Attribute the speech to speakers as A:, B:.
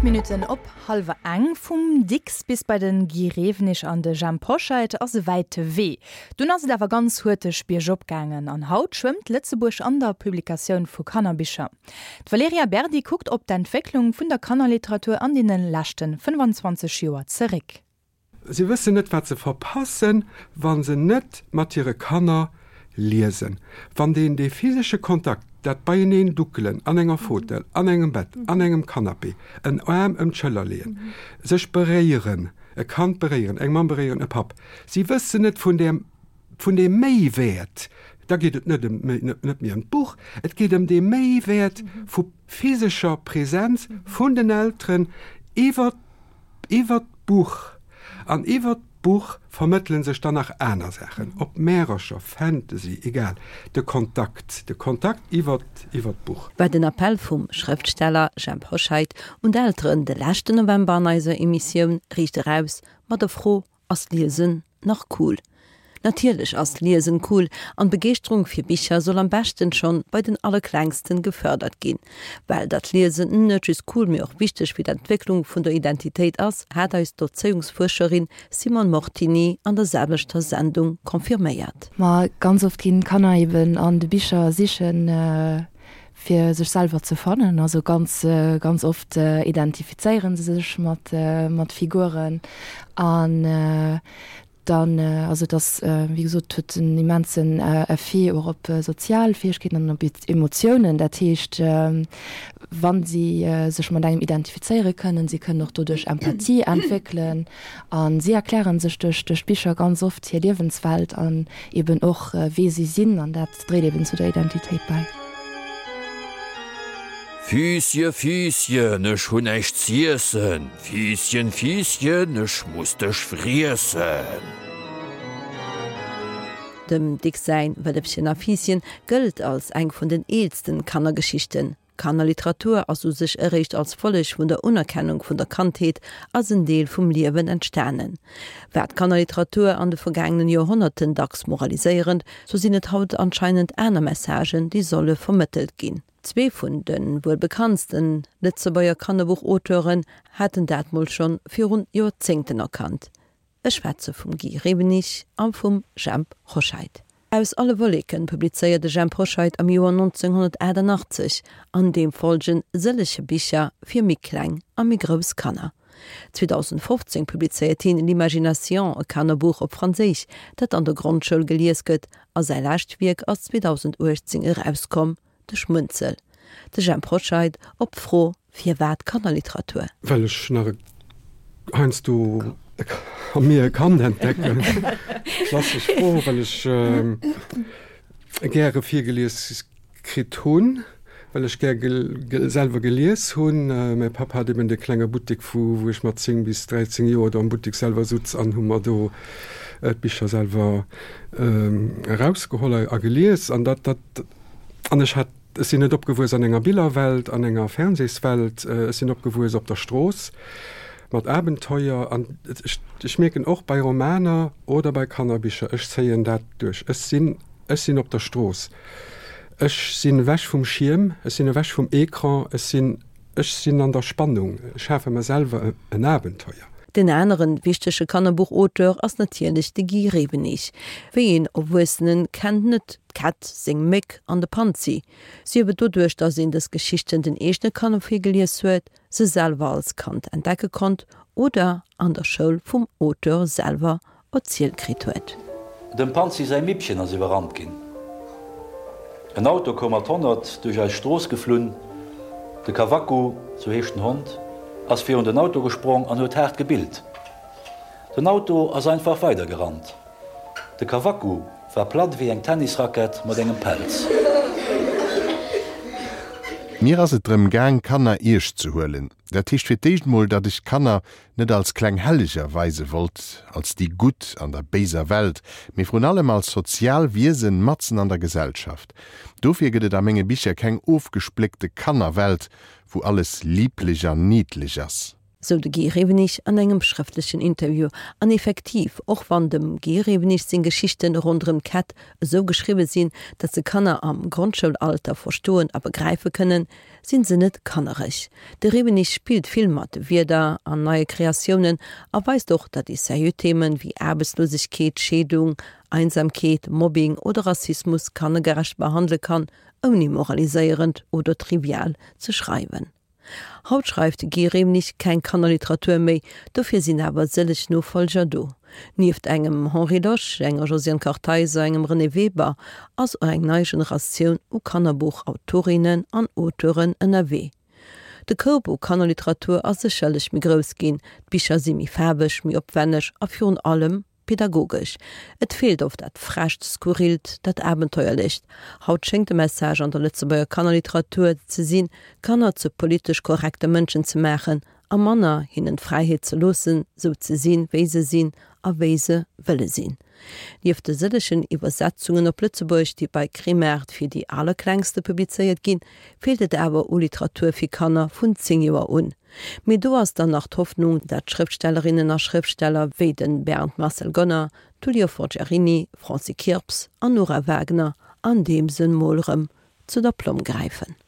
A: 8 Minutten op hallwer eng. Vum Dicks bis bei de Guy Rewenig an de Jhemp Hoscheit ass e wäite Wee. Dunn ass et awer ganz huerteg biergop gaangen an haut schwëmmt Lëtzebuerg an der Publikatioun vu Kannerbicher. D'Valerija Berdi kuckt op d'Entwécklung vun der Kannerliteratur an deene leschte 25 Joer zeréck.
B: Si wëssen net, wat se verpassen, wa se net mat hire Kanner liesen. Wann deen dee physesche Kontakt, dat beieneen duckelen an enger Fautel, an engem Bett, an engem Canapé, en Aarm ëm d'Schëller leeën, sech beréieren, e Kand beréieren, eng Mamm beréieren, e Papp, si wëssen net vun där, vun deem Méiwäert, da geet et net ëm, net méi ëm d'Buch, et geet ëm dee Méiwäert vu physescher Präsenz vun den Elteren iwwer Iwwert d'Buch an iwwert d'Buch vermëttele sech dann nach aner Saachen, ob Märercher, Fantasy, egal, de Kontakt, de Kontakt iwwert iwwert d'Buch.
C: War den Appell vum Schrëftsteller Jhemp Hoscheit un d'Elteren de leschten November an eiser Emissioun Riicht eraus mat der Fro, Ass Liesen nach cool? Natierlech ass Liesen cool an d'Begeeschterung fir Bicher soll am beschten schonn bei den Allerklengsten gefördert ginn. Well datt Liesen net just cool mee och wichteg fir d'Entwécklung vun der Identitéit ass, hat eis d'Erzéiungsfuerscherin Simone Mortini an der selwechter Sendung confirméiert.
D: Ma ganz oft ginn d'Kanner eben an de Bicher sichen fir sech selwer ze fannen. Also ganz ganz oft identifizéieren se sech mat mat Figuren an dann also et ass wéi gesot huet en immensen Effet och op sozial Fäegkeeten an op Emotiounen. Dat heescht wa si sech mat engem identifizéiere kënnen, si kënnen och doduerch Empathie entwéckelen a si erklären sech duerch duerch d'Bicher ganz oft hir Liewenswelt an eben och wee si sinn an dat dréit eben zu der Identitéit bäi.
E: Fiissche, Fiisschen, ech hunn näischt z'iessen, Fiisschen, Fiisschen, ech muss dech friessen.
C: Dem Dicks säin Wëllefchen a Fiisschen gëllt als eng vun den eelsten Kannergeschichten. D'Kannerliteratur ass u sech eréischt als Folleg vun der Unerkennung vun der Kandheet als en Deel vum Liewen entstanen. War d'Kannerliteratur an de vergaangenen Joerhonnerten dacks moraliséierend, sou sinn et haut anscheinend aner Messagen, déi solle vermëttelt ginn. Zwee vun de wuel bekanntsten Lëtzebuerger Kannerbuch-Auteuren haten dat mol schonn virun Joerzéngten erkannt. Ech schwätze vum Guy Rewenig a vum Jhemp Hoscheit. Aus alle Wolleken publizéiert de Jhemp Hoscheit am Joer 1988 an deem folgen sëllege Bicher fir méi kleng a méi grouss Kanner. 2015 publizéiert hien L'Imagination, e Kannerbuch op Franséisch, dat an der Grondschoul gelies gëtt a säi lescht Wierk ass 2018 erauskomm, De Schmunzel. De Jhemp Hoscheit op d'Fro Firwat Kannerliteratur?
B: Well ech nach e heiansdo a mir e Kand entdecken. Klassesch Fro, well ech gäre virgelies kritt hunn, well ech gär selwer gelies hunn. Mäi Papp hat eben de klenge Buttek, vu wou ech mat 10 bis 13 Joer do am Buttek selwer sutz an hu mer do d'Bicher selwer erausgeholl a gelies. An dat, dat, an ech hat Ech sinn net opgewuess an enger Billerwelt, an enger Fernsehswelt. Ech sinn opgewuess op der Strooss mat Abenteuer. An ech, ech mierken och bei Romaner oder bei Kannerbicher, ech zéien dat duerch. Ech sinn, ech sinn op der Strooss. Ech sinn ewech vum Schierm, ech sinn ewech vum Ecran, ech sinn, ech sinn an der Spannung. Ech schafe mer selwer en Abenteuer.
C: Den aneren wichtege Kannerbuchauteur ass natierlech de Guy Rewenig. Wéi een Erwuessenen kennt net d'Kätt, seng Méck an de Panzi? Sief et doduerch, datt een dës Geschichten den eegene Kanner virgelies huet, se selwer als Kand entdecke konnt oder an der Schoul vum Auteur selwer erzielt kritt huet.
F: Dem Panzi säi Mippchen ass iwwerrannt ginn. En Auto koum mat 100 duerch eis Strooss geflunn. De Kawakku, sou heescht den Hond, ass virun den Auto gesprong an huet haart gebillt. Den Auto ass einfach weidergerannt. De Kawakku war platt ewéi eng Tennisrackett mat engem Pelz.
G: Mir ass et drëm gaang, Kanner eescht ze huelen. Dat heescht fir d'éischt mol, datt ech d'Kanner net als kleng Helleger weise wollt, als déi Gutt an der béiser Welt, mee vrun allem als sozial Wiesen matzen an der Gesellschaft. Dofir gëtt et a menge Bicher keng ofgespléckte Kannerwelt, wou alles liblech an niddlech ass.
C: Sou de Guy Rewenig an engem schrëftlechen Interview. An effektiv, och wann dem Guy Rewenig seng Geschichten ronderëm d'Kätt esou geschriwwe sinn, datt se Kanner am Grondschoulalter verstoen a begräife kënnen, sinn se net kannereg. De Rewenig spillt vill mat Wierder an neie Kreatiounen a weist och, datt ee seriö Themen wéi Aarbechtslosegkeet, Scheedung, Einsamkeet, Mobbing oder Rassismus kannergerecht behandele kann, ouni moraliséierend oder trivial ze schreiwen. Haut schreift de Guy Remnig keng Kannerliteratur méi, dofir sinn awer sëlleg Nofollger do. Nieft engem Henri Losch, enger Josiane Kartheiser, engem Renée Weber ass och eng nei Generatioun u Kannerbuchautorinnen an Auteuren ënnerwee. De Koup u Kannerliteratur ass sécherlech méi grouss ginn, d'Bicher si méi faarweg, méi opwenneg a virun allem Pädagogesch. Et feelt oft dat Frescht, Skurrilt, dat Abenteuerlecht. Haut schéngt de Message an der Lëtzebuerger Kannerliteratur ze sinn, Kanner zu politesch korrekte Mënschen ze maachen a manner hinnen d'Fräiheet ze loossen, sou ze sinn, wéi se sinn a wéi se wëlle sinn. Nieft de sëllegen Iwwersetzungen op Lëtzebuergesch, déi bei Kremart fir déi Allerklengste publizéiert ginn, feelt et awer u Literatur fir Kanner vun 10 Joer un. Mee do ass dann nach d'Hoffnung, dat Schrëftstellerinnen a Schrëftsteller wéi de Bernd Marcel Gonner, Tullio Forgiarini, Francis Kirps an Nora Wagner an deem Sënn mol rëm zu der Plomm gräifen.